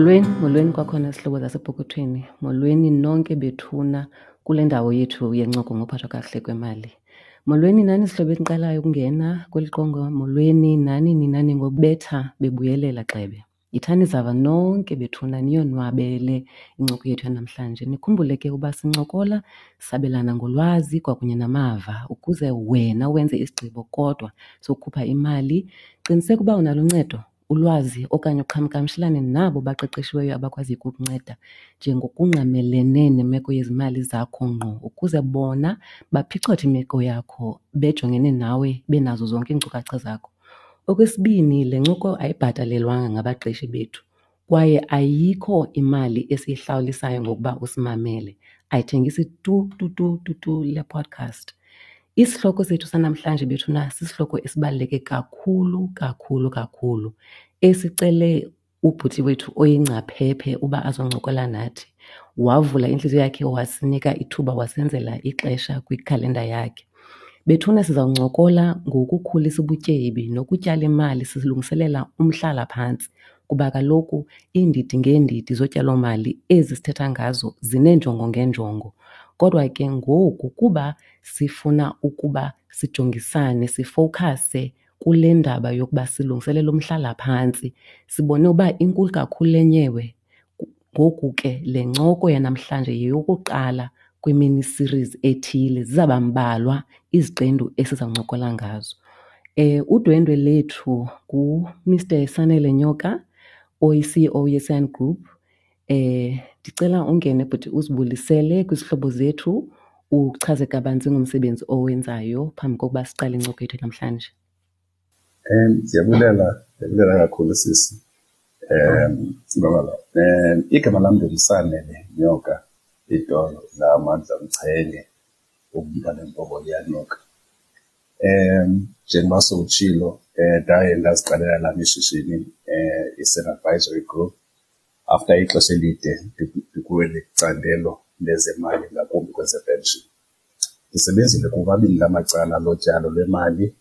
Molweni, molweni kwakhona zihlobo zasepokothweni. Molweni nonke bethuna kule ndawo yethu yencoko ngophathwa kakuhle kwemali. Molweni nani zihlobo eniqalayo ukungena kweli qonga, molweni nani nina ningobetha bebuyelela gxebe. Yithani zava nonke bethuna niyonwabele incoko yethu yanamhlanje. Nikhumbule ke uba sincokola sabelana ngolwazi kwakunye namava ukuze wena wenze isigqibo kodwa sokukhupha imali. Qiniseka uba unalo uncedo, ulwazi okanye uqhagamshelane nabo baqeqeshiweyo abakwaziyo ukukunceda njengokungqamelene nemeko yezimali zakho ngqo ukuze bona baphicothe imeko yakho bejongene nawe benazo zonke iinkcukacha zakho. Okwesibini, le ncoko ayibhatalelwanga ngabaqeshi bethu kwaye ayikho imali esiyihlawulisayo ngokuba usimamele. Ayithengisi tu tu tu tu tu le podcast. Isihloko sethu sanamhlanje bethuna sisihloko esibaluleke kakhulu kakhulu kakhulu esicele ubhuti wethu oyingcaphephe uba azoncokola nathi. Wavula intliziyo yakhe wasinika ithuba wasenzela ixesha kwikhalenda yakhe. Bethuna sizawuncokola ngokukhulisa ubutyebi nokutyala imali silungiselela umhlalaphantsi kuba kaloku iindidi ngeendidi zotyalomali ezi sithetha ngazo zineenjongo ngeenjongo. Kodwa ke ngoku kuba sifuna ukuba sijongisane, sifowukhase kule ndaba yokuba silungiselela umhlalaphantsi, sibone uba inkulu kakhulu le nyewe. Ngoku ke le ncoko yanamhlanje yeyokuqala kwimini series ethile, zizawuba mbalwa iziqendu esizawuncokola ngazo. Udwendwe lethu nguMr Sanele Nyoka oyi-CEO yeSan Group. Ndicela ungene bhuti uzibulisele kwizihlobo zethu, uchaze kabanzi ngomsebenzi owenzayo phambi kokuba siqale incoko yethu namhlanje. Ndiyabulela, ndiyabulela kakhulu sisi. Sibabalo. Igama lam ndinguSanele Nyoka, itolo lamandla Mchenge, umntwana empoko liyanuka. Njengoba sowutshilo, ndaye ndaziqalela lam ishishini, iSan Advisory Group, after ixesha elide ndikweli candelo lezemali, ngakumbi kwezepenshini. Ndisebenzile kumabini la macala lotyalo lwemali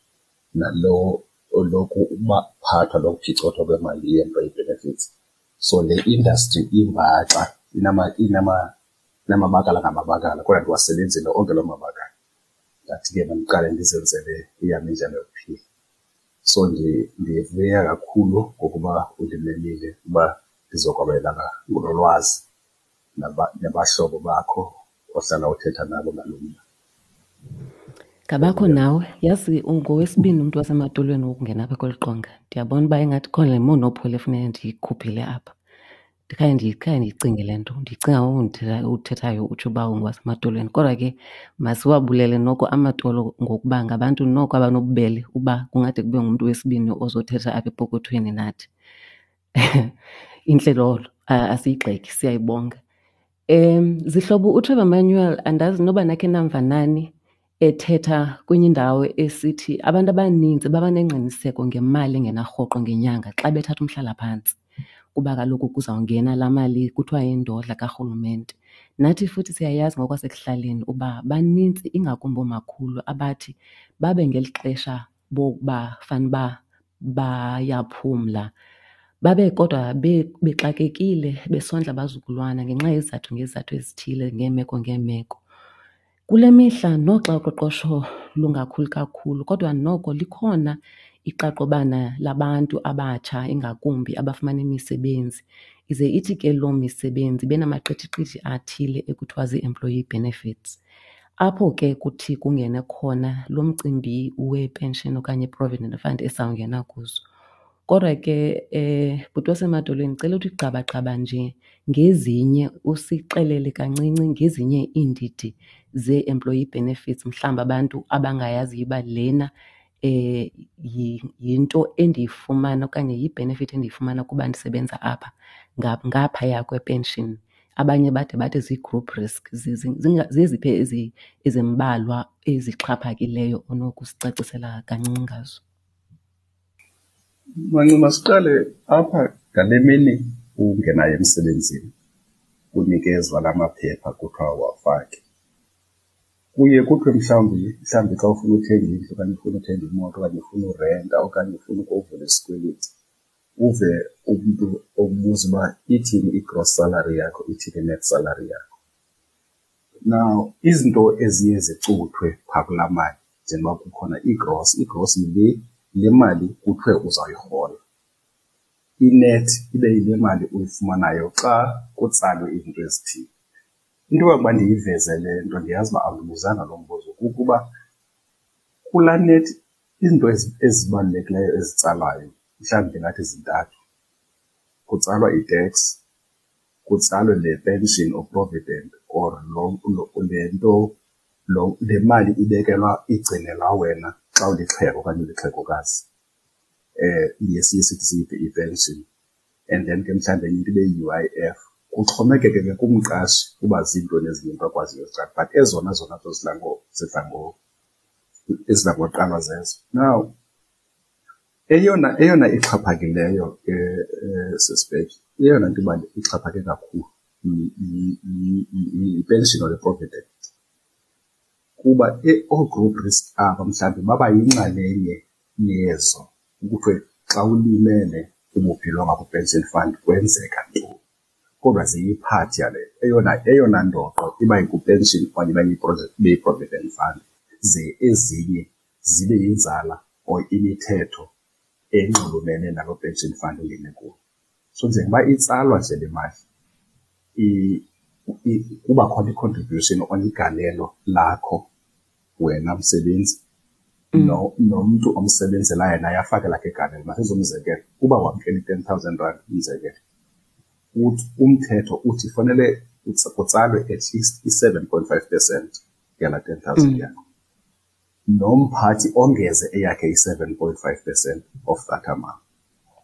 nalo lokuphathwa lokuphicothwa kwemali ye-employee benefits. So le industry imbaxa, inamabakala ngamabakala, kodwa ndiwasebenzile onke loo mabakala. Ndathi ke mandiqale ndizenzele eyam indlela yokuphila. So ndivuya kakhulu ngokuba undimemile uba ndizokwabelana ngolwazi nabahlobo bakho ohlala uthetha nabo ngalo mba. Ngabakho nawe, yazi ungowesibini umntu wasematolweni wokungena apha kweli qonga. Ndiyabona uba ingathi khona le monopoly efuneka ndiyikhuphile apha. Ndikhaye ndikhaye ndiyicinge le nto, ndiyicinga ngoku uthethayo utsho uba ungowasematolweni. Kodwa ke masiwabulele noko amatolo ngokuba ngabantu noko abanobubele uba kungade kube ngumntu wesibini ozothetha apha epokothweni nathi. Intle loo nto, asiyigxeki, siyayibonga. Zihlobo, uTrevor Manuel andazi noba nakhe namva nani ethetha kwenye indawo esithi abantu abaninzi baba nengqiniseko ngemali engena rhoqo ngenyanga xa bethatha umhlalaphantsi kuba kaloku kuzawungena laa mali kuthiwa yindodla karhulumente. Nathi futhi siyayazi ngokwasekuhlaleni uba banintsi ingakumbi oomakhulu abathi babe ngeli xesha bokuba fanuba bayaphumla babe kodwa bexakekile besondla abazukulwana ngenxa yezizathu ngezizathu ezithile ngeemeko ngeemeko. Kule mihla noxa uqoqosho lungakhuli kakhulu kodwa noko likhona iqaqobana labantu abatsha ingakumbi abafumana imisebenzi. Ize ithi ke loo misebenzi ibe namaqithiqithi athile ekuthiwa zii-employee benefits. Apho ke kuthi kungene khona lo mcimbi wepenshini okanye i-provident fund esizawungena kuzo. Kodwa ke bhuti wasemadolweni ndicela uthi gqabagqaba nje ngezinye, usixelele kancinci ngezinye iindidi zee-employee benefits mhlawumbi abantu abangayaziyo uba lena yinto endiyifumana okanye yi-benefit endiyifumana kuba ndisebenza apha ngaphaya kwepenshini. Abanye bade bathi zii-group risk. Zeziphi ezimbalwa ezixhaphakileyo onokusicacisela kancinci ngazo? Manci, siqale apha ngale mini ungenayo emsebenzini, unikezwa la maphepha kuthiwa wafake. Kuye kuthiwe mhlawumbi xa ufuna uthenga indlu okanye ufuna uthenga imoto okanye ufuna urenta okanye ufuna ukuvula isikweliti, Uve umntu okubuza uba ithini i-gross salary yakho, ithini i-net salary yakho. Now, izinto eziye zicuthwe phaa kulaa mali njengoba kukhona i-gross, i-gross yile le mali kuthiwe uzawuyirhola. I-net ibe yile mali uyifumanayo xa kutsalwe izinto ezithile. Into yokuba ndiyiveze le nto, ndiyazi uba awundibuzanga lo mbuzo, kukuba kulaa net izinto ezibalulekileyo ezitsalwayo mhlawumbi ndingathi zintathu. Kutsalwa i-tax, kutsalwe le pension or provident or le nto, lo le mali ibekelwa igcinelwa wena xa ulixhego okanye ulixhegokazi, iye siye sithi i-pension. And then ke mhlawumbi enye into ibe yi-UIF. Kuxhomekeke ke kumqashi uba ziintoni ezinye into akwaziyo uzitsala, but ezona zona nto zidla ngoqalwa zezo. Now, eyona ixhaphakileyo ke sisibheki, eyona nto ixhaphake kakhulu yi-pension or i-provident. Kuba oo-group risk aba mhlawumbi baba yinxalenye yezo, kuthiwe xa ulimele ububhilonga kwi-pension fund kwenzeka ntoni. Kodwa ziyiphathi yale eyona ndoqo iba yikwi-pension okanye ibe yi-provident fund, ze ezinye zibe yinzala or imithetho enxulumene naloo pension fund ungene kuyo. So njengoba itsalwa nje le mali, kuba khona i-contribution okanye igalelo lakho wena msebenzi nomntu omsebenzelayo naye afake lakhe igalelo. Masenze umzekelo, uba wamkela i-10,000 rand umzekelo, umthetho uthi fanele kutsalwe at least i-7.5% yalaa 10,000 yakho. Nomphathi ongeze eyakhe i-7.5% of that amount.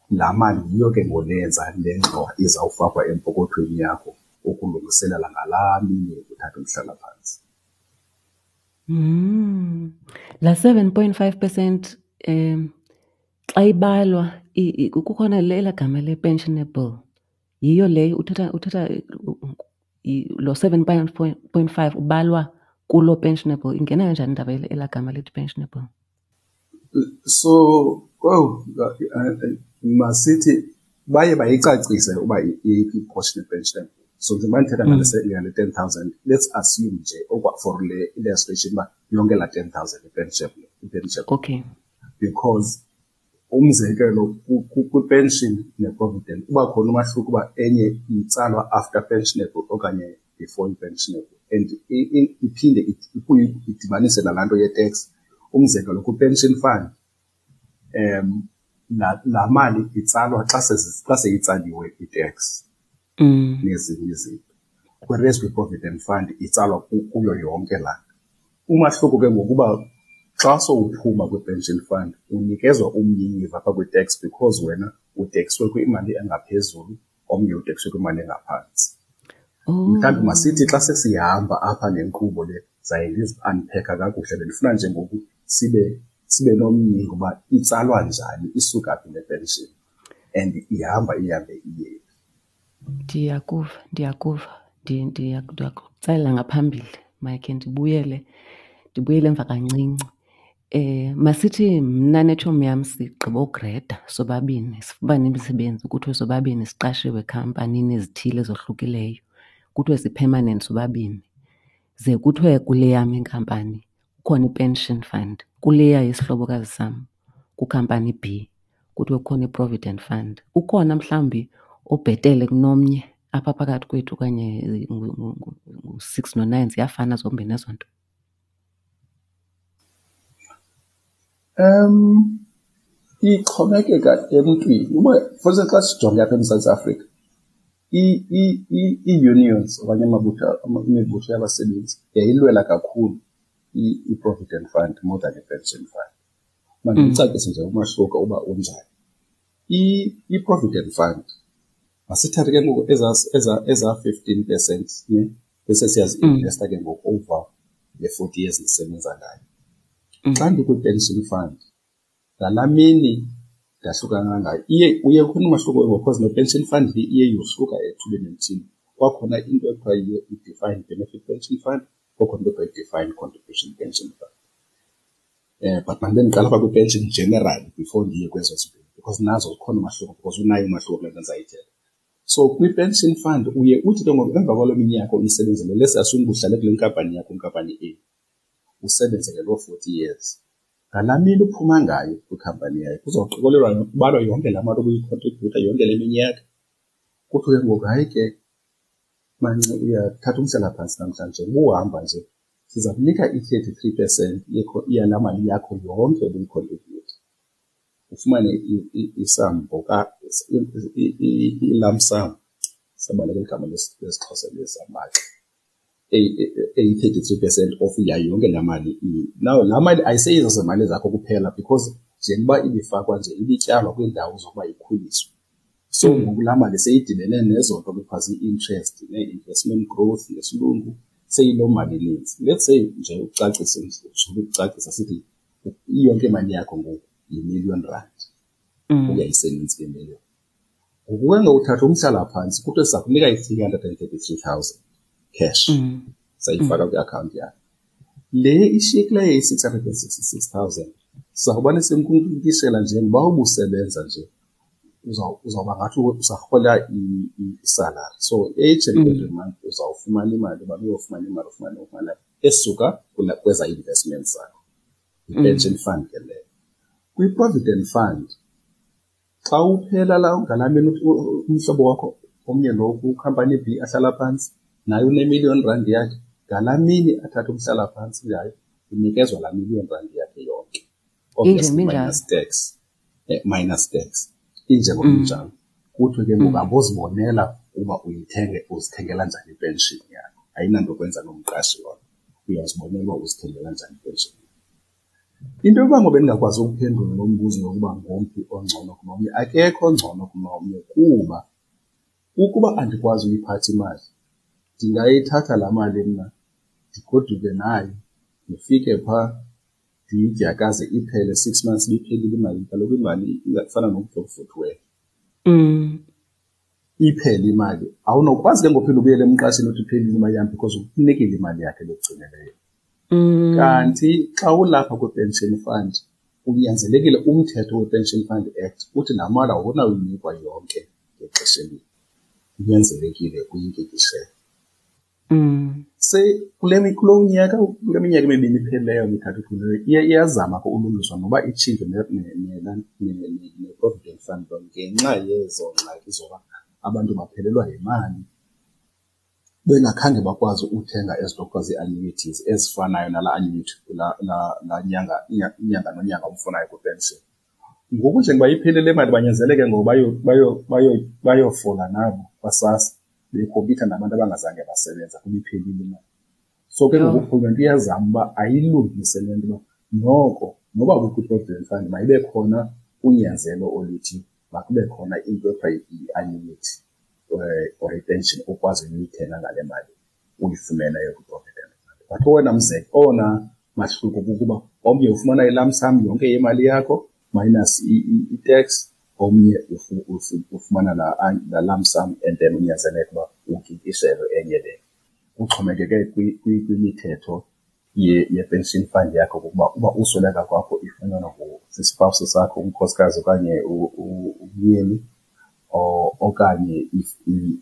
Laa mali yiyo ke ngoku leyenza le ngxowa izawufakwa empokothweni yakho ukulungiselela ngalaa mini yokuthatha umhlalaphantsi. Laa 7.5% xa ibalwa kukhona elaa gama le-pensionable, yiyo leyo uthetha lo 7.5 ubalwa kuloo pensionable. Ingena kanjani indaba elaa gama lithi pensionable? So, oh, masithi baye bayicacise uba iyiphi i-portion ye-pensionable. So njengoba ndithetha ngale 10,000, let's assume nje for le illustration uba yonke laa 10,000 i-pensionable, i-pensionable. Because umzekelo kwi-pension ne-provident uba khona umahluko uba enye itsalwa after pensionable okanye before i-pensionable, and iphinde ibuye idibanise nalaa nto ye-tax. Umzekelo kwi-pension fund, laa mali itsalwa xa seyitsaliwe i-tax nezinye izinto. Whereas kwi-provident fund itsalwa kuyo yonke laa nto. Umahluko ke ngokuba xa sowuphuma kwi-pension fund unikezwa umnyinyiva apha kwi-tax because wena utekswe kwimali engaphezulu, omnye utekswe kwimali engaphantsi. Mhlawumbi masithi xa sesihamba apha nenkqubo le zaye ndizi-unpack-a kakuhle, bendifuna nje ngoku sibe nomnyingo uba itsalwa njani, isuka phi le pension and ihamba ihambe iye phi. Ndiyakuva, ndiyakuva. Ndiyakutsalela ngaphambili, makhe ndibuyele emva kancinci. Masithi mna netshomi yam sigqiba ugreda sobabini, sifumane imisebenzi kuthiwe sobabini siqashiwe ekhampanini ezithile ezohlukileyo, kuthiwe si-permanent sobabini. Ze kuthiwe kule yam inkampani kukhona i-pension fund, kuleya yesihlobokazi sam kwikhampani B kuthiwe kukhona i-provident fund. Ukhona mhlawumbi obhetele kunomnye apha phakathi kwethu okanye ngu-6 no-9, ziyafana zombini ezo nto? Ixhomekeka emntwini. Uba, for instance, xa sijonge apha eMzantsi Afrika, ii-unions okanye imibutho yabasebenzi yayilwela kakhulu i-provident fund more than i-pension fund. Mandicacise nje umahluko uba unjani. I-provident fund, masithathe ke ngoku eza 15%, ne, bese siyazi-investa ke ngoku over le 40 years ndisebenza ngayo. Xa ndikwi-pension fund, ngalaa mini ndahlukana ngayo, uye khona umahluko ke ngoku, because ne-pension fund le iye yohluka ethubeni elithile. Kwakhona into ekuthiwa i-defined benefit pension fund, kwakhona into ekuthiwa i-defined contribution pension fund. But mandibe ndiqala apha kwi-pension generally before ndiye kwezo zimbini, Because nazo zikhona umahluko, because unayo umahluko kule nto ndizayithetha. So kwi-pension fund uye uthi ke ngoku emva kwaloo minyaka uyisebenzele, let's assume uhlale kule nkampani yakho, inkampani A, usebenzele loo 40 years. Ngalaa mini uphuma ngayo kwikhampani yayo kuzoqikelelwa, kubalwa yonke laa mali obuyikhontribhutha yonke le minyaka. Kuthiwe ke ngoku, hayi ke manci, uyathatha umhlalaphantsi namhlanje, ubuhamba nje, siza kunika i-33% yalaa mali yakho yonke obuyikhontribhutha. Ufumane isambo i-lump sum, sabaleka igama lesiXhosa lesambaxa, eyi-33% of yayo yonke laa mali. Now laa mali ayiseyizo zemali zakho kuphela, because njengoba ibifakwa nje ibityalwa kwiindawo zokuba ikhuliswe. So ngoku laa mali seyidibene nezo nto kuthiwa zii-interest nee-investment growth ngesilungu, seyiloo mali ininzi. Let's say nje ucacise, ukucacisa sithi iyonke imali yakho ngoku yi-million rand. Uyayiseninzi ke million. Ngoku ke ngoku uthatha umhlalaphantsi, kuthiwe siza kunika i-333,000 cash. Sayifaka kwiakhawunti yakho. Le ishiyekileyo iyi-666,000 sizawubane simkunkishela njengoba ubusebenza nje, uzawuba ngathi usarhola isalari. So each and every month uzawufumana imali, uba uyofumana imali, ufumane ufumana esuka kweza investments zakho. Yi-pension fund ke leyo. Kwi-provident fund, xa uphela la ngalaa mini umhlobo wakho omnye lo kwikhampani B ahlala phantsi, naye une-million rand yakhe, ngalaa mini athathe umhlalaphantsi ngayo, unikezwa laa million rand yakhe yonke. Obviously minus tax. Minus tax. Injengoba injalo. Kuthiwe ke ngoku abozibonela uba uyithenge, uzithengela njani ipension yakho. Ayinanto kwenza nomqashi lona. Uyazibonela uba uzithengela njani ipension yakho. Into yokuba ngoba ndingakwazi ukuphendula lo mbuzo yokuba ngomphi ongcono kunomnye, akekho ongcono kunomnye, kuba ukuba andikwazi uyiphatha imali, ndingayithatha laa mali mna ndigoduke nayo, ndifike phaa ndiyidyakaze iphele 6 months ibiphelile imali. Kaloku imali ingafana nomntu okuvuthiweyo. Iphele imali. Awunokwazi ke ngoku uphinda ubuyele emqashini uthi iphelile imali yam, because ukunikile imali yakhe ebekugcineleyo. Kanti xa ulapha kwi-pension fund, unyanzelekile umthetho we-Pension Fund Act uthi laa mali awunawuyinikwa yonke ngexesha elinye. Kunyanzelekile uyinkikishele. Se kule kulo nyaka, kule minyaka emibini iphelileyo, mithathu iphelileyo, iyazama ke ulungiswa noba itshintshwe ne-Provident Fund ngenxa yezo ngxaki zoba abantu baphelelwa yimali bengakhange bakwazi uthenga ezi nto kuthiwa zii-annuities ezifanayo nalaa annuity laa nyanga, inyanga nonyanga umfunayo kwipension. Ngoku njengoba iphelile le mali, banyanzeleke ngoku bayofola nabo kwaSASSA, bekhompyutha nabantu abangazange basebenza kuba iphelile imali. So ke ngoku urhulumente uyazama uba ayilungise le nto uba noko noba kukho i-provident fund mayibe khona unyanzelo oluthi makube khona into ekuthiwa yi-annuity or ipension okwazi uyithenga ngale mali uyifumeneyo kwi-provident fund. But owona owona mahluko kukuba omnye ufumana i-lump sum yonke yemali yakho minus i-tax, omnye ufumana la lump sum and then unyanzeleke uba ukikiselwe enye le. Kuxhomekeke kwimithetho ye-pension fund yakho, kukuba uba usweleka kwakho ifunyanwa sispouse sakho, unkosikazi okanye umyeni, okanye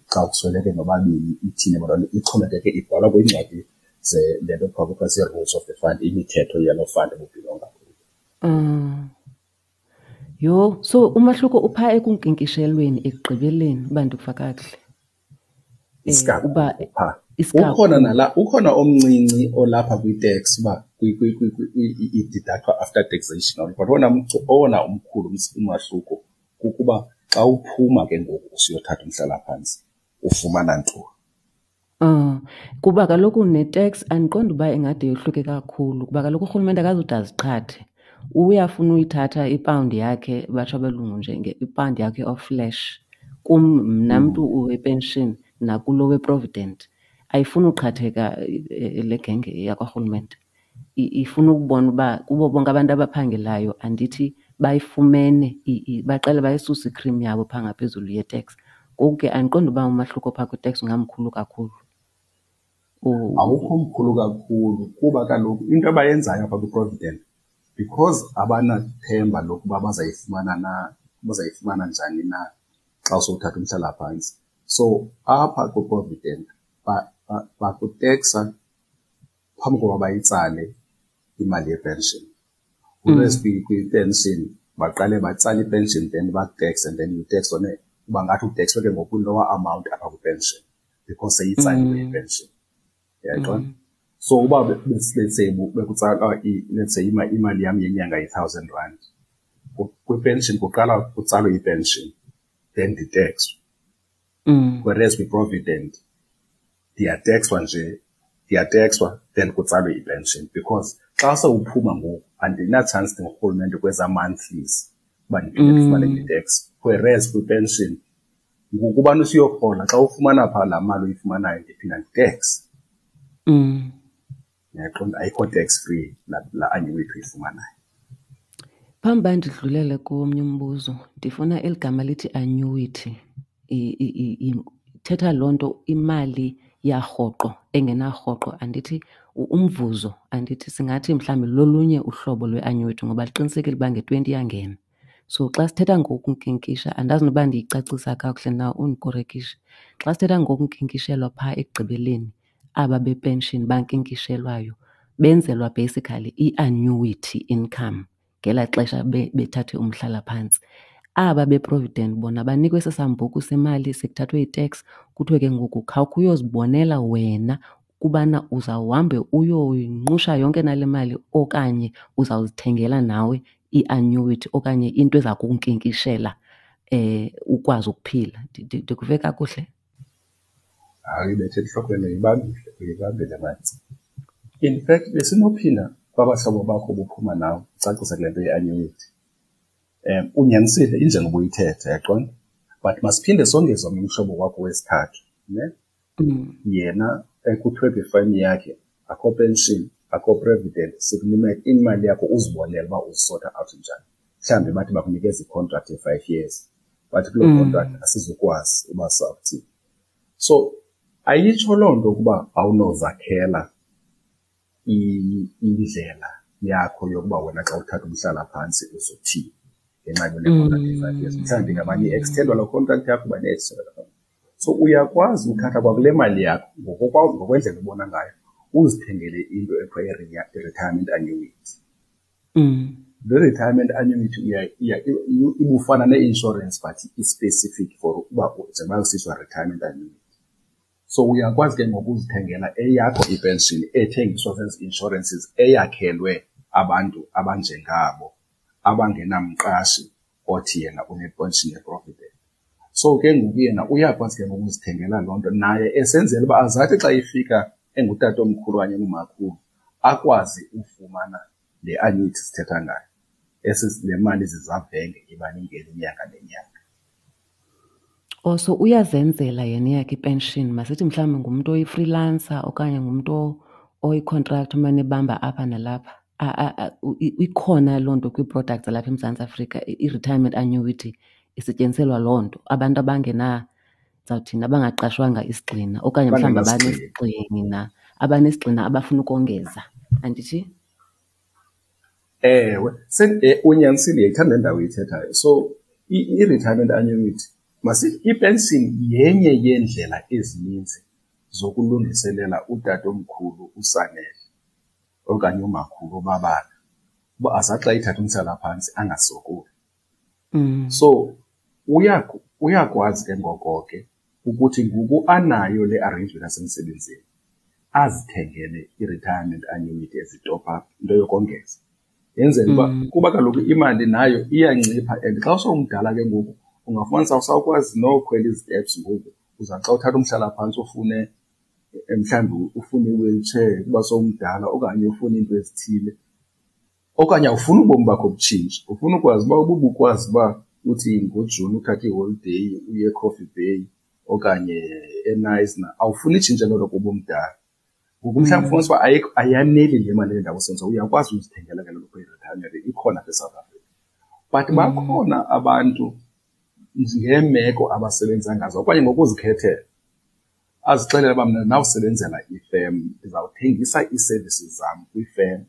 xa kusweleke nobabini ithini bona, ixhomekeke, ibhalwa kwiincwadi le nto kuthiwa zii-rules of the fund, imithetho yaloo fund ububhilonga kuyo. Yho, so umahluko uphaa ekunkinkishelweni ekugqibeleni, uba ndikuva kakuhle. Isikakhulu uba phaa. Isikakhulu. Ukhona nala, ukhona omncinci olapha kwi-tax uba i-deductwa after taxation, but owona umkhulu umahluko kukuba xa uphuma ke ngoku usiyothatha umhlalaphantsi ufumana ntoni. Kuba kaloku ne-tax andiqondi uba ingade yohluke kakhulu, kuba kaloku urhulumente akazude aziqhathe. Uyafuna uyithatha ipawundi yakhe, batsho abelungu nje ipawundi yakhe of flesh. Kum mna mntu wepension nakulo we-provident, ayifuni uqhatheka le genge yakwarhulumente. Ifuna ukubona uba kubo bonke abantu abaphangelayo andithi bayifumene, baqale bayisuse i-cream yabo phaa ngaphezulu ye-tax. Ngoku ke andiqondi uba umahluko phaa kwi-tax ungamkhulu kakhulu. Awukho mkhulu kakhulu, kuba kaloku into abayenzayo apha kwi-provident, because abanathemba lokuba bazayifumana na ubuzayifumana njani na xa usowuthatha umhlalaphantsi. So apha kwiProvident bakuteksa phambi koba bayitsale imali yepension. Whereas kwi-pension baqale batsale i-pension, then baku-tax, and then you tax on it. Uba ngathi utekswe ke ngoku lower amount apha kwi-pension because seyitsaliwe i-pension. Uyayibona? So uba let's say bekutsalwa let's say imali yam yenyanga yi-1,000 rand. Kwi-pension kuqala kutsalwe i-pension, then nditekswe. Whereas kwi-provident ndiyatekswa nje, ndiyatekswa then kutsalwe i-pension, because xa sewuphuma ngoku andina-chance ndingurhulumente kwezaa monthlies uba ndiphinde ndifumane i-tax. Whereas kwi-pension ngokubana usuyorhola, xa ufumana phaa laa mali uyifumanayo ndiphinda nditexe. Uyaqonda, ayikho tax free laa annuity uyifumanayo. Phambi uba ndidlulele komnye umbuzo, ndifuna eli gama lithi annuity. Ithetha loo nto imali yarhoqo engenarhoqo, andithi umvuzo, andithi singathi mhlawumbi lolunye uhlobo lwe-annuity ngoba liqinisekile uba nge-20 iyangena. So xa sithetha ngokunkinkisha, andazi noba ndiyicacisa kakuhle na, undikorekishe. Xa sithetha ngokunkinkishelwa phaa ekugqibeleni, aba bepenshini bankinkishelwayo benzelwa basically i-annuity income ngelaa xesha bethathe umhlalaphantsi. Aba beprovident bona banikwe esi sambuku semali sekuthathwe i-tax, kuthiwe ke ngoku khawukhe uyozibonela wena kubana uzawuhambe uyoyinqusha yonke nale mali okanye uzawuzithengela nawe i-annuity okanye into eza kunkinkishela ukwazi ukuphila. Ndikuve kakuhle? Hayi, ibethe entlokweni, uyibambile, uyibambile Mantsi. In fact, besinophinda kwabahlobo bakho buphuma nawe ucacise kule nto ye-annuity. Unyanisile injengoba uyithetha, yaqonda? But masiphinde songeze omnye umhlobo wakho wesithathu, ne? Yena ekuthiwe kwifayim yakhe akho pension, akho provident, sikunika imali yakho uzibonele uba uzisota out njani. Mhlawumbi bathi bakunikeza i-contract ye-5 years, but kuloo contract asizukwazi uba sawuthini. So ayitsho loo nto ukuba awunozakhela indlela yakho yokuba wena xa uthatha umhlalaphantsi uzothini ngenxa yale contract ye-5 years. Mhlawumbi ngamanye i-extendwa loo contract yakho uba ne-extendwa loo contract. So uyakwazi uthatha kwakule mali yakho ngokwendlela obona ngayo uzithengele into ekuthiwa i-retirement annuity. Le retirement annuity ibufana ne-insurance but i-specific for uba njengoba kusithiwa retirement annuity. So uyakwazi ke ngoku uzithengela eyakho ipension ethengiswa zezi insurances eyakhelwe abantu abanjengabo abangenamqashi othi yena unepension yeprovident. So ke ngoku yena uyakwazi ke ngoku uzithengela loo nto naye esenzela uba azathi xa ifika engutatomkhulu okanye engumakhulu akwazi ufumana le annuity sithetha ngayo. Esi le mali zizavenge iba ningena inyanga nenyanga. Oh, so uyazenzela yena eyakhe ipension. Masithi mhlawumbi ngumntu oyi-freelancer okanye ngumntu oyi-contractor omane ebamba apha nalapha. Ikhona loo nto kwii-products zalapha eMzantsi Afrika, i-retirement annuity isetyenziselwa loo nto. Abantu abangena, ndizawuthini, abangaqashwanga isigxina okanye mhlawumbi Abangenasigxina. abanesigxina abafuna ukongeza, andithi? Ewe, unyanisile, ndiyayithanda le ndawo uyithethayo. So i-retirement annuity, masithi ipension yenye yeendlela ezininzi zokulungiselela utatomkhulu uSanele okanye umakhulu uBabala uba azathi xa ethatha umhlalaphantsi angasokoli. So uyakwazi ke ngoko ke ukuthi ngoku anayo le arrangement yasemsebenzini azithengele i-retirement annuity as i-top up, into yokongeza. Yenzela uba kuba kaloku imali nayo iyancipha, and xa usowumdala ke ngoku ungafumanisa awusakwazi nokhwela iziteps ngoku. Uza xa uthatha umhlalaphantsi ufune mhlawumbi ufune i-wheelchair kuba sowumdala okanye ufune iinto ezithile, okanye awufuni ubomi bakho butshintshe, ufuna ukwazi uba ububukwazi uba uthi ngoJuni uthathe iholideyi uye eCoffee Bay okanye eKnysna, awufuni itshintshe loo nto kuba umdala. Ngoku mhlawumbi ufumanisa uba ayaneli le mali endawo senza, uyakwazi uzithengela ke loo nto i-retirement ikhona apha eSouth Africa. But bakhona abantu ngeemeko abasebenza ngazo okanye ngokuzikhethela, azixelele uba mna ndawusebenzela ifem, ndizawuthengisa ii-services zam kwifem,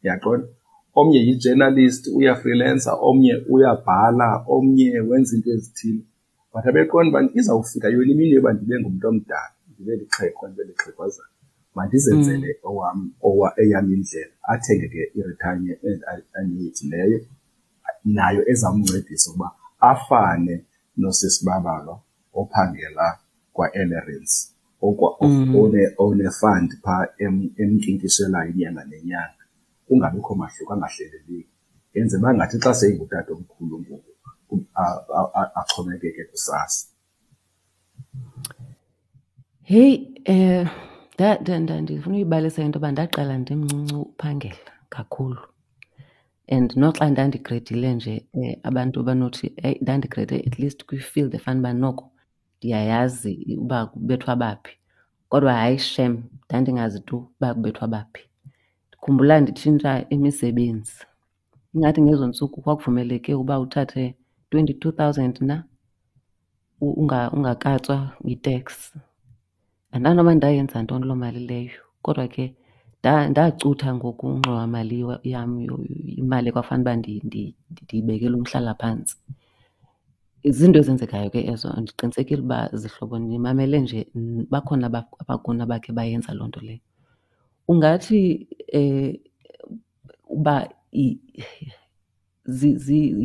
uyaqonda? Omnye yi-journalist, uyafrilensa, omnye uyabhala, omnye wenza iinto ezithile. But abeqonda uba izawufika yona imini yoba ndibe ngumntu omdala, ndibe lixhego, ndibe lixhegwazana, mandizenzele eyam indlela. Athenge ke i-retirement annuity leyo nayo ezamncedisa ukuba afane nosisiBabalwa ophangela kwa-Ellerines, one-fund phaa emnkinkishelayo inyanga nenyanga, kungabikho mahluko, angahleleleki. Yenze uba ngathi xa seyingutata omkhulu ngoku axhomekeke kusasa. Heyi, ndifuna uyibalisa into yoba ndaqala ndimncinci uphangela kakhulu. And noxa ndandigredile nje abantu banothi eyi ndandigrede at least kwi-field efanuba noko ndiyayazi uba kubethwa baphi. Kodwa hayi shem ndandingazi tu uba kubethwa baphi. Ndikhumbula nditshintsha imisebenzi. Ingathi ngezo ntsuku kwakuvumeleke uba uthathe 22,000 na ungakatswa yi-tax. Andazi noba ndayenza ntoni loo mali leyo kodwa ke ndacutha ngoku ingxowamali yam, imali ekwakufanele uba ndiyibekele umhlalaphantsi. Ziinto ezenzekayo ke ezo, ndiqinisekile uba zihlobo nimamele nje bakhona abakuni abakhe bayenza loo nto leyo. Ungathi uba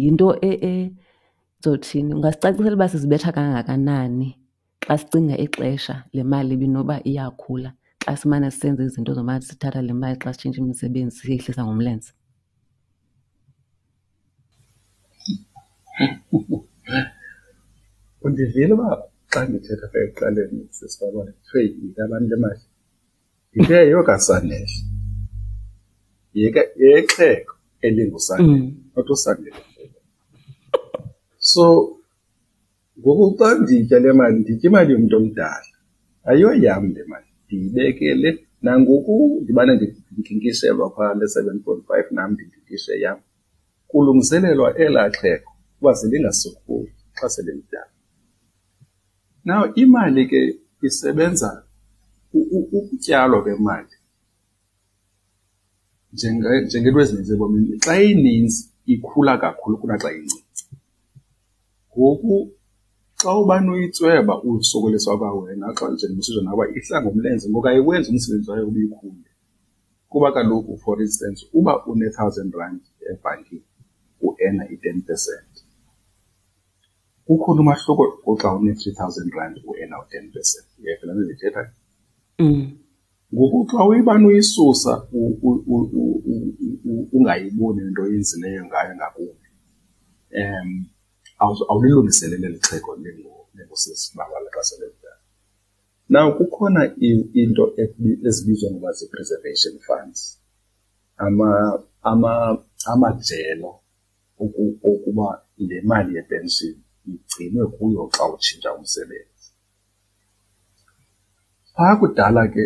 yinto ndizothini, ungasicacisela uba sizibetha kangakanani xa sicinga ixesha le mali ibinoba iyakhula xa simane sisenza izinto zomane sithatha le mali xa sitshintsha imisebenzi siyehlisa ngomlenze? Undivile uba xa ndithetha apha ekuqaleni sisibabona kuthiwe yekabantu le mali? Ndithe yeyokaSanele, yexhego elinguSanele, not uSanele. So ngoku xa nditya le mali, nditya imali yomntu omdala, ayoyam le mali, ndiyibekele. Nangoku ndibane ndinkinkishelwa phaa le 7.5, nam ndinkinkishe yam, kulungiselelwa elaa xhego uba selingasokoli xa selilidala. Now imali ke isebenza ukutyalwa kwemali njengento ezininzi ebomini, xa ininzi ikhula kakhulu kunaxa incinci. Ngoku xa ubani uyitsweba usokoliswa kwawena, xa njengoba usitsho nawe ihla ngomlenze, ngoku ayiwenzi umsebenzi wayo uba ikhule. Kuba kaloku for instance uba une-thousand rand ebhankini uena i-10%, kukhona umahluko kuxa une-3,000 rand uena u-10%. Uyayiva le nto ndiyithethayo? Ngoku xa uyibana uyisusa ungayiboni into oyenzileyo ngayo ngakumbi, awulilungiseleli eli xhego lingusisibabala xa sele lidala. Now kukhona into ezibizwa ngoba zii-preservation funds, amajelo okuba le mali yepenshini igcinwe kuyo xa utshintsha umsebenzi. Phaa kudala ke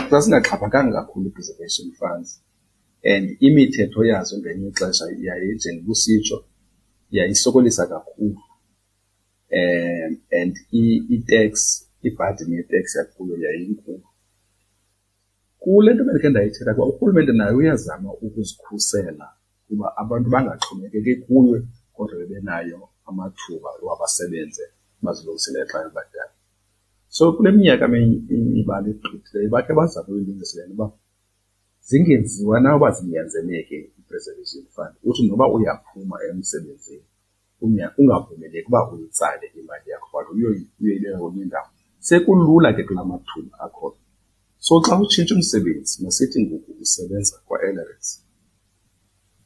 zazingaxhaphakanga kakhulu ii-preservation funds and imithetho yazo ngelinye ixesha njengoba usitsho, yayisokolisa kakhulu. And i-tax, ibhadini ye-tax yakuyo yayinkulu. Kule nto bendikhe ndayithetha kuba urhulumente naye uyazama ukuzikhusela kuba abantu bangaxhomekeki kuye, kodwa bebenayo amathuba oba basebenze bazilungiselele xa bebadala. So kule minyaka imibala egqithileyo bakhe bazama uyilungisa le nto uba zingenziwa na uba zinyanzeleke i-preservation fund, uthi noba uyaphuma emsebenzini ungavumeleki uba uyitsale imali yakho but uyoyibeka kwenye indawo. Sekulula ke kula mathuba akhoyo. So xa utshintsha umsebenzi, masithi ngoku usebenza kwa-Ellerines,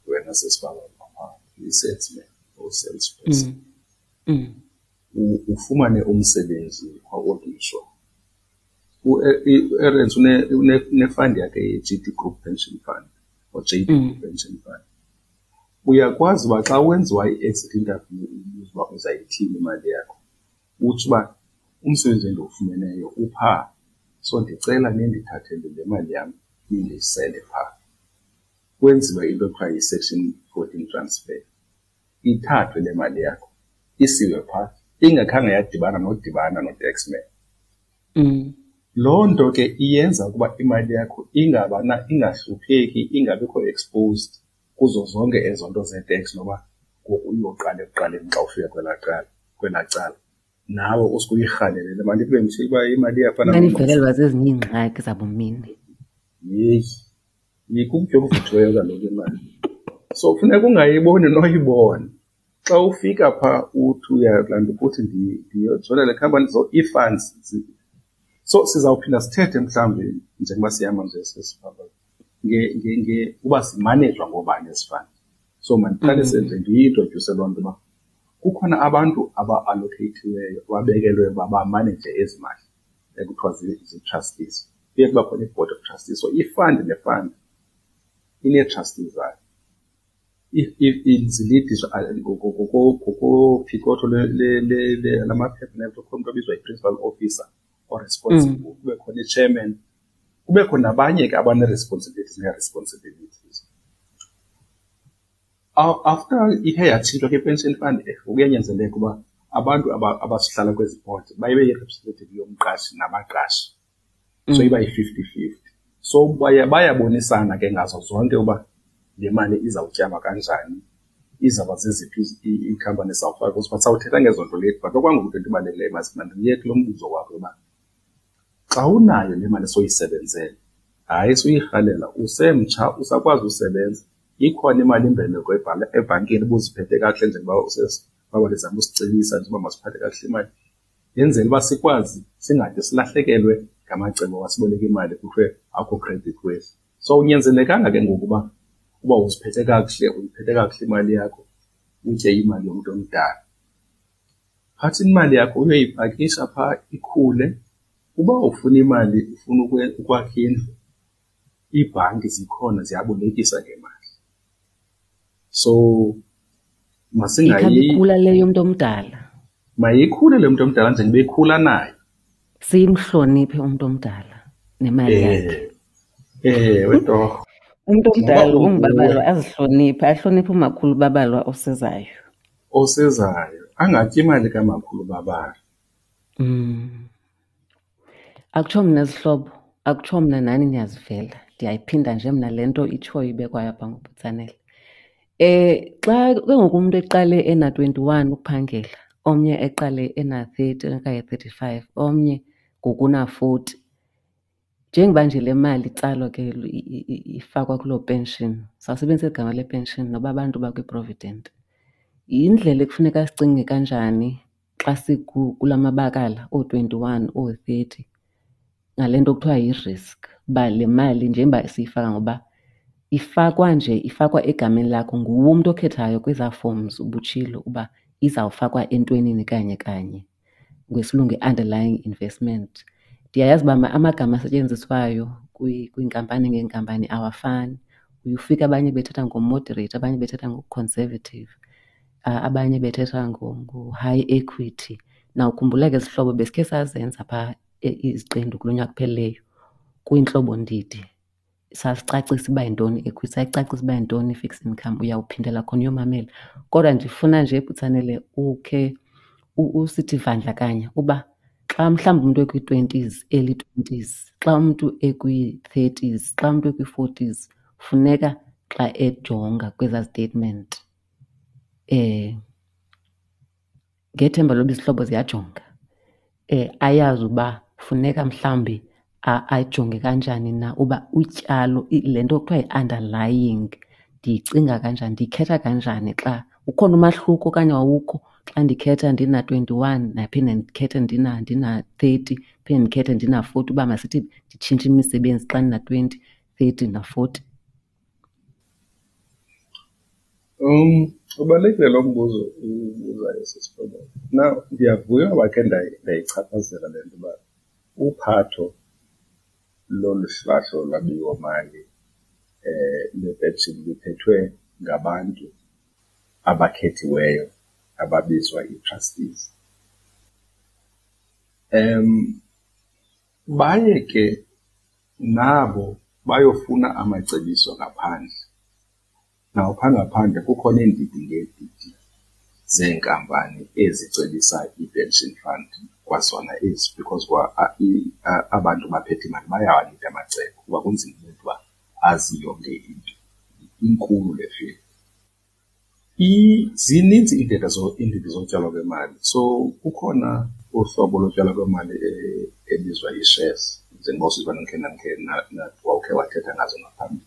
wena sesibaba uyi-salesman or salesperson. Ufumane umsebenzi kwa-Old Mutual. U-Ellerines une-fund yakhe ye-G D Group Pension Fund or J D Group Pension Fund. Uyakwazi uba xa wenziwa i-exit interview ubuza uba uzayithini imali yakho, utsho uba umsebenzi endiwufumeneyo uphaa, so ndicela nindithathele le mali yam nindiyisele phaa. Kwenziwe into ekuthiwa yi-section 14 transfer, ithathwe le mali yakho isiwe phaa, ingakhange yadibana nodibana no-taxman. Loo nto ke iyenza ukuba imali yakho ingabana ingahlupheki, ingabikho exposed kuzo zonke ezo nto zee-tax noba ngoku uyoqala ekuqaleni xa ufika kwelaa cala, kwelaa cala. Nawe usuke uyirhalele le mali kube mhle uba imali iyafana. Imali ivelelwa zezinye iingxaki zabumini. Yeyi, yikutya okuvuthiweyo kaloku imali. So funeka ungayiboni noyibona. Xa ufika phaa uthi uyalanda ukuthi ndiyojoyina le khampani, so ii-funds. So sizawuphinda sithethe mhlawumbi njengoba sihamba nje sesihamba uba simanejwa ngoobani ezi fund. So mandiqalise nje ndiyi-introdyuse loo nto uba kukhona abantu aba-allocate-iweyo, ababekelwe uba bamaneje ezi mali ekuthiwa zii-trustees. Kuye kuba khona i-board of trustees. So i-fund ne-fund inee-trustees zayo. Zilidiswa ngokophicotho lamaphepha nento, kukho umntu obizwa yi-principal officer o-responsible, kube khona i-chairman, kubekho nabanye ke abanee-responsibilities nee-responsibilities. After ikhe yatshintshwa ke i-pension fund, kuyanyanzeleka uba abantu abasihlala kwezi board baye yi-representative yomqashi nabaqashi. So iba yi-fifty-fifty. So bayabonisana ke ngazo zonke uba le mali izawutyalwa kanjani, izawuba zeziphi iikhampani ezizawufaka kuzo. But sawuthetha ngezo nto later. But okwangoku into ebalulekileyo mandiye kulo mbuzo wakho yoba xa unayo le mali soyisebenzele, hayi suyirhalela, usemtsha usakwazi usebenza, ikhona imali imbeleko ebhankini ubuziphethe kakuhle njengoba baba lizama usicebisa nje uba masiphathe kakuhle imali, yenzela uba sikwazi singade silahlekelwe ngamacebo wasiboleka imali kuthiwe akho credit worthy. So unyanzelekanga ke ngoku uba uziphethe kakuhle, uyiphethe kakuhle imali yakho, utye imali yomntu omdala. Phatha imali yakho uyoyipakisha phaa ikhule. Uba ufuna imali, ufuna ukwakha indlu, iibhanki zikhona ziyabolekisa ngemali. So masingayi Ikhabe ikhula le yomntu omdala. Mayikhule le yomntu omdala njengoba ikhula nayo. Simhloniphe umntu omdala nemali yakhe. Ewe torho. Umntu omdala ungubabalwa azihloniphe, ahloniphe umakhulu babalwa osezayo. Osezayo, angatyi imali kamakhulu babalwa. Akutsho mna zihlobo, akutsho mna nani niyazivela. Ndiyayiphinda nje mna le nto itshoyo ibekwayo apha ngoButsanele. Xa ke ngoku umntu eqale ena-21 ukuphangela, omnye eqale ena-30 okanye 35, omnye ngoku una-40. Njengoba nje le mali itsalwa ke ifakwa kuloo pension, sawusebenzisa eli gama le-pension noba abantu bakwi-provident, yindlela ekufuneka sicinge kanjani xa kula mabakala oo-21, oo-30 ngale nto kuthiwa yi-risk, uba le mali njengoba siyifaka ngoba ifakwa nje, ifakwa egameni lakho, nguwe umntu okhethayo kwezaa forms ubutshilo uba izawufakwa entwenini kanye kanye, ngesiLungu i-underlying investment. Ndiyayazi uba amagama asetyenziswayo kwiinkampani ngeenkampani awafani. Uye ufike abanye bethetha ngo-moderate, abanye bethetha ngo-conservative, abanye bethetha ngo-high equity. Nawukhumbula ke zihlobo besikhe sazenza phaa iziqendu kulo nyaka uphelileyo kwiintlobo-ndidi. Sasicacisa uba yintoni i-equity, sayicacisa uba yintoni i-fixed income, uyawuphindela khona uyomamela. Kodwa ndifuna nje Butsanele ukhe usithi vandlakanya uba xa mhlawumbi umntu ekwi-twenties, early twenties, xa umntu ekwi-thirties, xa umntu ekwi-forties, funeka xa ejonga kwezaa statement ngethemba loba izihlobo ziyajonga, ayazi uba funeka mhlawumbi ajonge kanjani na uba utyalo, le nto kuthiwa yi-underlying ndiyicinga kanjani, ndiyikhetha kanjani xa ukhona umahluko okanye awukho xa ndikhetha ndina-21 naphinde ndikhethe ndina-30, phinde ndikhethe ndina-40, uba masithi nditshintshe imisebenzi xa ndina-20, 30 na-40. Ubalulekile lo mbuzo ubuzayo sisifobo. Now, ndiyavuya uba khe ndayichaphazela le nto uba uphatho lolu hlahlo lwabiwomali lwepenshini luphethwe ngabantu abakhethiweyo ababizwa ii-trustees. Baye ke nabo bayofuna amacebiso ngaphandle. Nawupha ngaphandle kukhona iindidi ngeendidi zeenkampani ezicebisa ii-pension fund. kwazona ezi, because kwa abantu baphethe imali bayawanida amacebo kuba kunzima umntu uba azi yonke into. Inkulu le field. Zininzi iindlela iindidi zotyalwa kwemali. So kukhona uhlobo lotyalwa kwemali ebizwa ii-shares, njengoba usiva ndikhe ndandikhe wawukhe wathetha ngazo ngaphambili.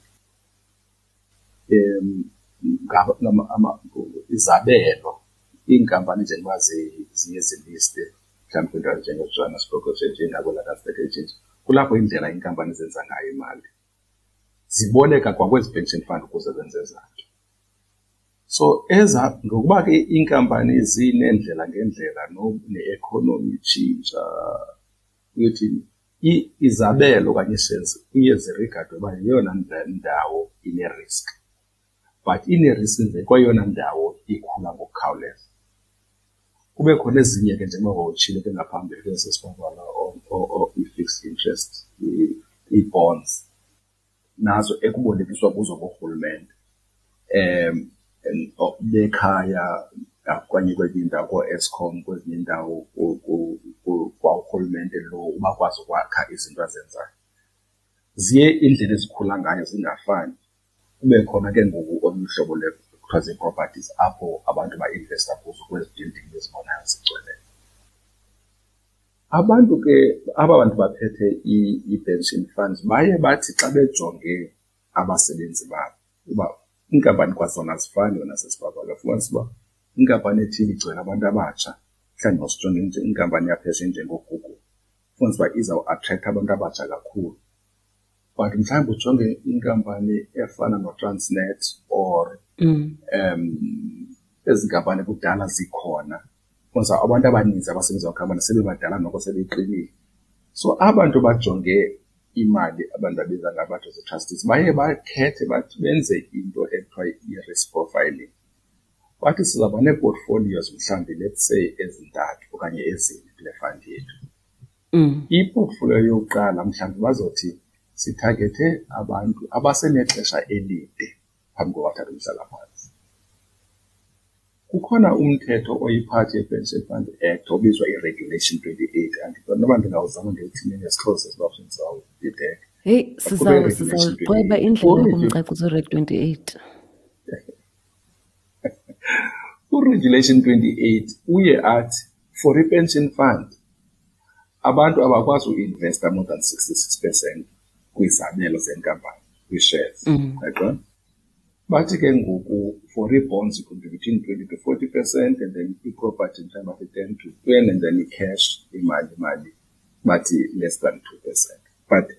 Izabelo, iinkampani njengoba ziye ziliste mhlawumbi kwiindawo ezinjengeJohannesburg Exchange nakwii-London Stock Exchange, kulapho indlela iinkampani zenza ngayo imali. Ziboleka kwakwezi pension fund ukuze zenze ezaa nto. So eza ngokuba ke iinkampani zineendlela ngeendlela ne-economy itshintsha, uyothini, izabelo okanye ii-shares kuye zirigadwe uba yeyona ndawo ine-risk, but ine-risk nje kweyona ndawo ikhula ngokukhawuleza. Kube khona ezinye ke njengoba wawutshilo ke ngaphambili ke sesibabala i-fixed interest, ii-bonds, nazo ekubolekiswa kuzo ngurhulumente bekhaya okanye kwezinye iindawo kooEskom, kwezinye iindawo kwa urhulumente lo ubakwazi ukwakha izinto azenzayo. Ziye iindlela ezikhula ngayo zingafani. Kube khona ke ngoku olunye uhlobo kuthiwa zii-properties apho abantu bainvesta kuzo kwezi building bezibonayo zigcweleyo. Abantu ke, aba bantu baphethe ii-pension funds baye bathi xa bejonge abasebenzi babo, uba iinkampani kwazona azifani wena sesibabala, ufumanise uba inkampani ethile igcwele abantu abatsha, mhlawumbi masijonge nje inkampani yaphesheya enjengoGoogle, ufumanise uba izawuatrektha abantu abatsha kakhulu. But mhlawumbi ujonge inkampani efana noTransnet or ezi nkampani kudala zikhona, ufumanisa abantu abaninzi abasebenza kwikhampani sebebadala noko sebeqinile. So abantu bajonge imali, abantu babiza ngabantu zii-trustees, baye bakhethe bathi benze into ekuthiwa yi-risk profiling. Bathi sizawuba nee-portfolios mhlawumbi let's say ezintathu okanye ezine kule fund yethu. I-portfolio yokuqala mhlawumbi bazothi sithagethe abantu abasenexesha elide phambi koba bathathe umhlalaphantsi. Kukhona umthetho oyiphathi ye-Pension Fund Act obizwa i-Regulation 28. Andiqondi noba ndingawuzama ndiwuthini ngesiXhosa siba sizawubhideka. Heyi, sizawuqweba indlela yokumcacisa uReg 28. URegulation 28 uye athi for i-pension fund abantu abakwazi uinvesta more than 66% kwizabelo zenkampani, kwii-shares. Uyaqonda? Bathi ke ngoku for ii-bonds it could be between 20 to 40% and then i-property mhlawumbi bathi 10 to 20 and then i-cash, imali bathi less than 2%. But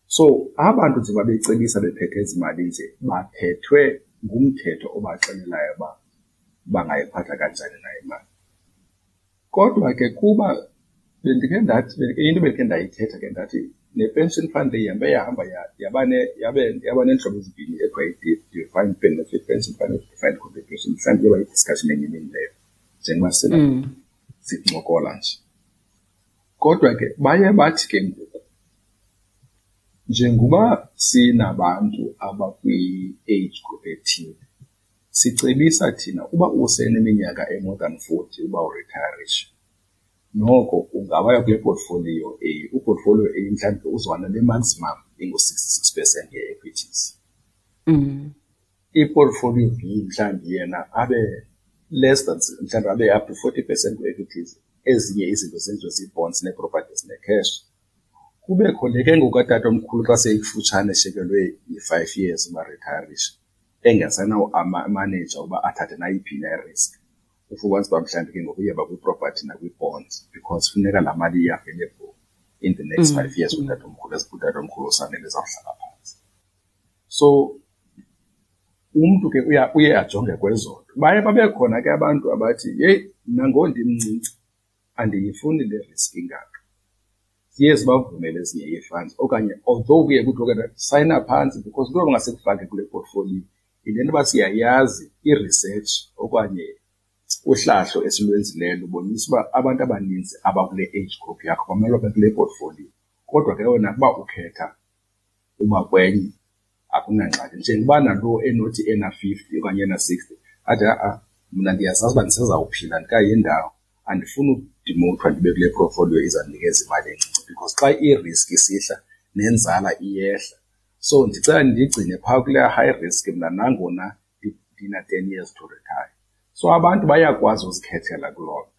so abantu nje babecebisa bephethe ezi mali nje baphethwe ngumthetho obaxelelayo uba bangayiphatha kanjani na imali. Kodwa ke kuba bendikhe ndathi, into bendikhe ndayithetha ke ndathi ne-pension fund le ihambe yahamba yaba neentlobo ezimbini ekuthiwa yi-defined benefit pension fund ne-defined contribution. Mhlawumbi iyoba yi-discussion enye imini leyo njengoba sincokola nje. Kodwa ke baye bathi ke ngoku njengoba sinabantu abakwi-age group ethile, sicebisa thina uba useneminyaka e-more than 40 uba uritayarishe, noko ungabaya kule portfolio A. U-portfolio A mhlawumbi uzoba nale maximum ingu-66% ye-equities. I-portfolio B mhlawumbi yena abe less than, mhlawumbi abe up to 40% kwi-equities, ezinye izinto zenziwe zii-bonds nee-properties ne-cash. Kubekho le ke ngoku katatomkhulu xa seyikufutshane eshekelwe yi-5 years uba retirishe, engasenawo amaneja uba athathe nayiphi na i-risk. Ufumanise uba mhlawumbi ke ngoku uyeba kwi-property nakwi-bonds because funeka laa mali i-available in the next 5 years utatomkhulu, utatomkhulu usanele ezawuhlala phantsi. So umntu ke uye ajonge kwezo nto. Baye babe khona ke abantu abathi, yeyi, mna ngondimncinci andiyifuni le risk ingaka. Ziye zibavumele ezinye ii-funds okanye although kuye kuthiwe ke sayina phantsi because into bangasekufake kule portfolio yile nto uba siyayazi i-research okanye uhlahlo esilwenzileyo lubonisa uba abantu abaninzi abakule age group yakho bamele babe kule portfolio. Kodwa ke wena ukuba ukhetha uba kwenye akunangxaki. Njengoba nalo enothi ena-50 okanye ena-60 athi, ha-a, mna ndiyazazi uba ndisezawuphila ndikayi ndawo, Andifuni udimothwa ndibe kule portfolio izandinikeza imali encinci because xa i-risk isihla nenzala iyehla. So ndicela ndigcine phaa kulaa high risk mna nangona ndina-10 years to retire. So abantu bayakwazi uzikhethela kuloo nto.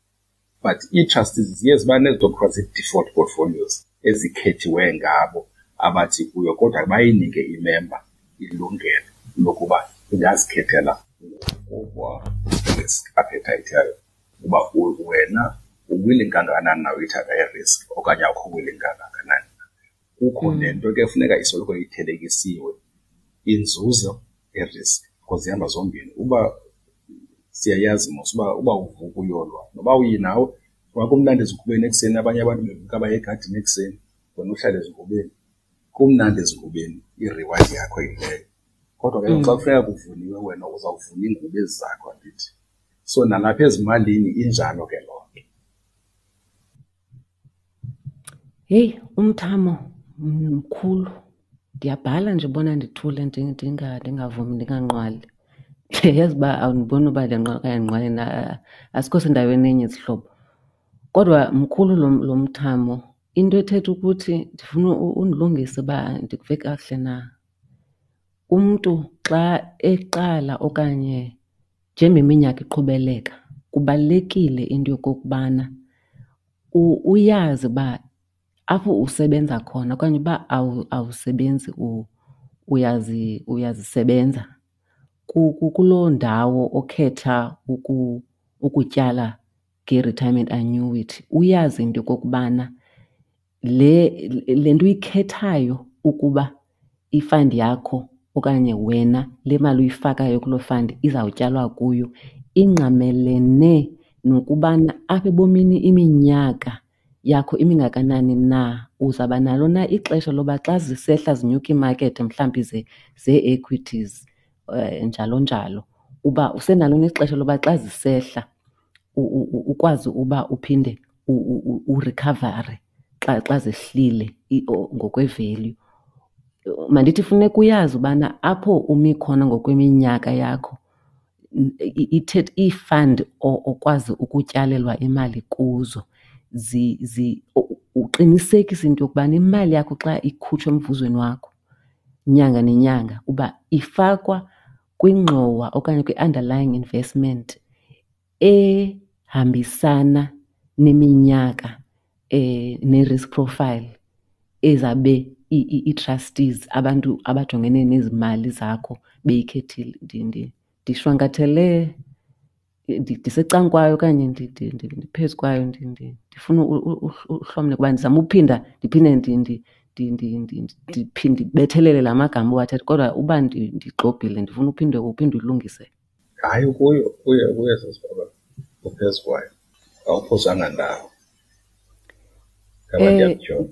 But ii-trustees ziye ziba nezinto kuthiwa zii-default portfolios ezikhethiwe ngabo abathi kuyo, kodwa bayinike imemba ilungelo lokuba ingazikhethela ngokwa-risk appetite yayo uba wena u-willing kangakanani na uyithatha i-risk okanye awukho willing kangakanani na. Kukho nento ke funeka isoloko ithelekisiwe, inzuzo ne-risk, because zihamba zombini. Uba siyayazi mos uba uvuka uyolwa noba uyi nawe, kwakumnandi ezingubeni ekuseni, abanye abantu bevuka baye egadini ekuseni, wena uhlale ezingubeni. Kumnandi ezingubeni, i-reward yakho yileyo. Kodwa ke xa kufuneka kuvuniwe wena uzawuvuna iingubo ezi zakho, andithi? So nalapha ezimalini injalo ke loo nto. Heyi, umthamo mkhulu. Ndiyabhala nje ubona ndithule ndingavumi, ndinganqwali. Ndiyayazi uba awundiboni uba ndiyanqwala okanye andinqwali na, asikho sendaweni enye zihlobo. Kodwa mkhulu lo mthamo, into ethetha ukuthi ndifuna undilungise uba ndikuve kakuhle na. Umntu xa eqala okanye njengoba iminyaka iqhubeleka kubalulekile into yokokubana uyazi uba apho usebenza khona okanye uba awusebenzi uyazisebenza kuloo ndawo okhetha ukutyala nge-retirement annuity, uyazi into yokokubana le nto uyikhethayo ukuba i-fund yakho okanye wena le mali uyifakayo kuloo fund izawutyalwa kuyo ingqamelene nokubana apha ebomini iminyaka yakho imingakanani na, uzawuba nalo na ixesha loba xa zisehla zinyuka iimakethi mhlawumbi zee-equities njalo njalo, uba usenalo na ixesha loba xa zisehla ukwazi uba uphinde urikhavare xa zehlile ngokwe-value. Mandithi funeka uyazi ubana apho umi khona ngokweminyaka yakho ii-fund okwazi ukutyalelwa imali kuzo uqinisekise into yokubana imali yakho xa ikhutshwa emvuzweni wakho nyanga nenyanga uba ifakwa kwingxowa okanye kwi-underlying investment ehambisana neminyaka ne-risk profile ezabe ii-trustees, abantu abajongene nezimali zakho beyikhethile. Ndishwankathele, ndisecangkwayo okanye ndiphezu kwayo, ndifuna uhlomle kuba ndizama uphinda ndiphinde ndibethelele la magama uwathetha, kodwa uba ndigxobhile ndifuna uphinde uphinde ulungise. Hayi, kuyo, kuyo, kuyo sesibaba, uphezu kwayo, awuphosanga ndawo. Ngaba ndiyakutyhola.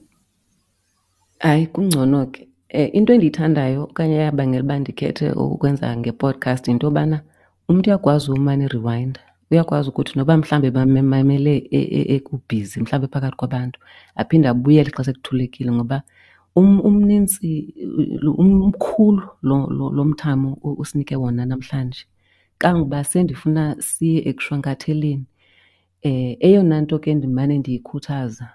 Hayi, kungcono ke. Into endiyithandayo okanye eyabangela uba ndikhethe ukwenza nge-podcast yinto yobana umntu uyakwazi umane eriwayinda, uyakwazi ukuthi noba mhlawumbi bamamele ekubhizi, mhlawumbi phakathi kwabantu, aphinde abuyele xa sekuthulekile ngoba umnintsi, umkhulu lo mthamo usinike wona namhlanje. Kangoba sendifuna siye ekushwankatheleni. Eyona nto ke ndimane ndiyikhuthaza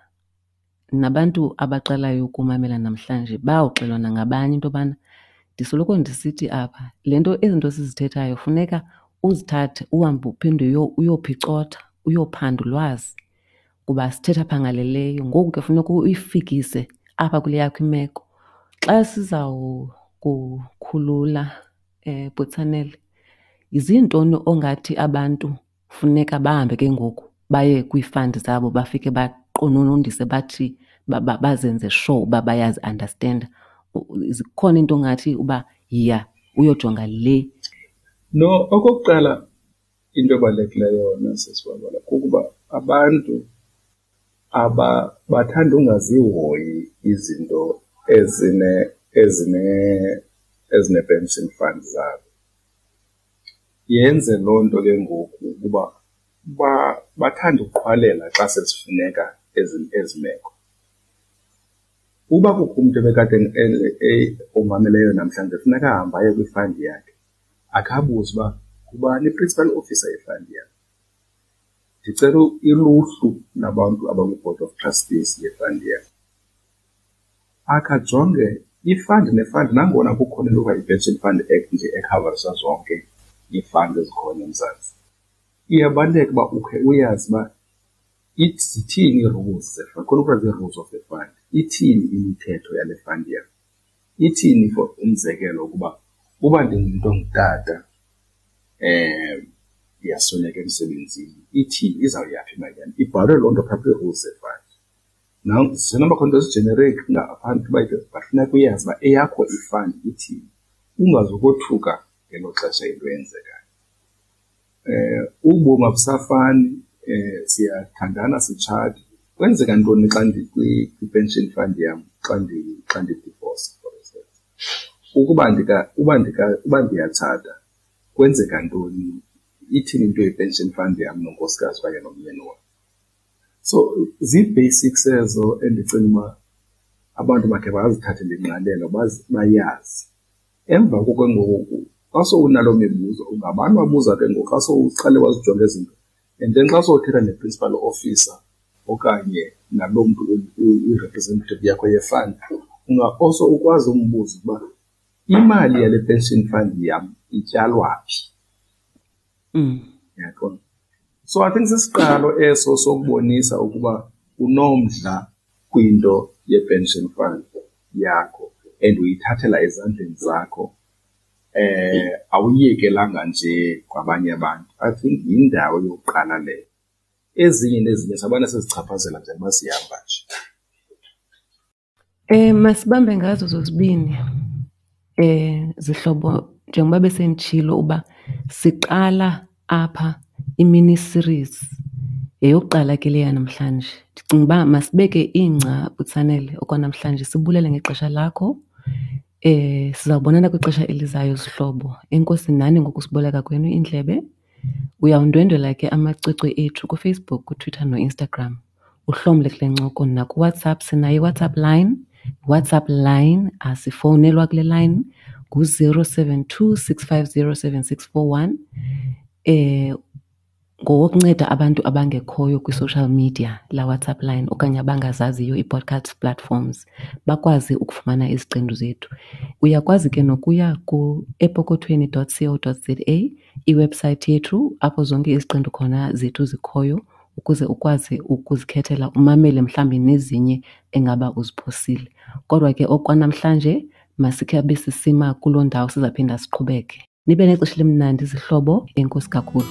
nabantu abaqalayo ukumamela namhlanje bayawuxelelwa nangabanye into yobana ndisoloko ndisithi apha le nto, ezi zinto sizithethayo funeka uzithathe uhambe uphinde uyophicotha, uyophanda ulwazi kuba sithetha phangaleleyo. Ngoku ke funeka uyifikise apha kule yakho imeko. Xa sizawukukhulula Butsanele, zintoni ongathi abantu funeka bahambe ke ngoku baye kwii-fund zabo bafike baqononondise bathi bazenze sure uba bayazi-understanda? Zikhona into ongathi uba yiya uyojonga le? No, okokuqala into ebalulekileyo yona sisiBabala kukuba abantu bathanda ungazihoyi izinto ezine-pension fund zabo. Yenze loo nto ke ngoku ukuba bathande ukuqhwalela xa sezifuneka ezi meko. Uba kukho umntu ebekade omameleyo namhlanje, funeka ahambe aye kwifandi yakhe akhe abuze uba ngubani i-principal officer yefandi yakhe. Ndicela iluhlu labantu abakwi-board of trustees ye-fund yam. Akhe ajonge i-fund ne-fund, nangona kukhona into ekuthiwa yi-Pension Fund Act nje ekhavarisa zonke ii-fund ezikhona eMzantsi. Iyabaluleka uba ukhe uyazi uba zithini ii-rules ze-fund, khona kuthiwa zii-rules of the fund. Ithini imithetho yale fund yam? Ithini for umzekelo ukuba uba ndingumntu ongutata ndiyasweleka emsebenzini, ithini, izawuya phi imali yam? Ibhalwe loo nto phaa kwii-rules ze-fund. Zisenoba khona into ezi-generic ngaphandle uba but funeka uyazi uba eyakho i-fund ithini, ungazukothuka ngelo xesha into eyenzekayo. Ubomi abusafani, siyathandana sitshate. Kwenzeka ntoni xa ndikwi-pension fund yam xa xa ndidivosa, for instance? Ukuba uba uba ndiyatshata kwenzeka ntoni? Ithini into ye-pension fund yam nonkosikazi okanye nomyeni wam? So zii-basics ezo endicinga uba abantu bakhe bazithathele ingqalelo, bayazi. Emva koko ke ngoku xa sowunaloo mibuzo ungabani wabuza ke ngoku xa sowuqale wazijonga ezi zinto. And then xa sowuthetha ne-principal officer okanye naloo mntu uyi-representative yakho ye-fund, unga-also ukwazi umbuza ukuba imali yale pension fund yam ityalwa phi. Uyaqonda? So I think sisiqalo eso sokubonisa ukuba unomdla kwinto ye-pension fund yakho and uyithathela ezandleni zakho, awuyiyekelanga nje kwabanye abantu. I think yindawo yokuqala leyo. Ezinye nezinye sabana sizichaphazela njengoba sihamba nje. Masibambe ngazo zozibini zihlobo, njengoba besenditshilo uba siqala apha i-mini series, yeyokuqala ke le yanamhlanje. Ndicinga uba masibeke ingca, Butsanele, okwanamhlanje sibulele ngexesha lakho. Sizawubonana kwixesha elizayo zihlobo. Enkosi nani ngokusiboleka kwenu iindlebe. Uyawundwendwela ke amacwecwe ethu kuFacebook, kuTwitter noInstagram. Uhlomle kule ncoko nakuWhatsApp. Sinayo iWhatsApp line. WhatsApp line asifowunelwa kule line ngu-072 650 7641. Ngowokunceda abantu abangekhoyo kwi-social media la WhatsApp line okanye abangazaziyo ii-podcast platforms bakwazi ukufumana iziqendu zethu. Uyakwazi ke nokuya ku-epokothweni dot co dot za, iwebhusayithi yethu apho zonke iziqendu khona zethu zikhoyo ukuze ukwazi ukuzikhethela umamele mhlawumbi nezinye engaba uziphosile. Kodwa ke okwanamhlanje masikhe abe sisima kuloo ndawo, sizaphinda siqhubeke. Nibe nexesha elimnandi zihlobo, enkosi kakhulu.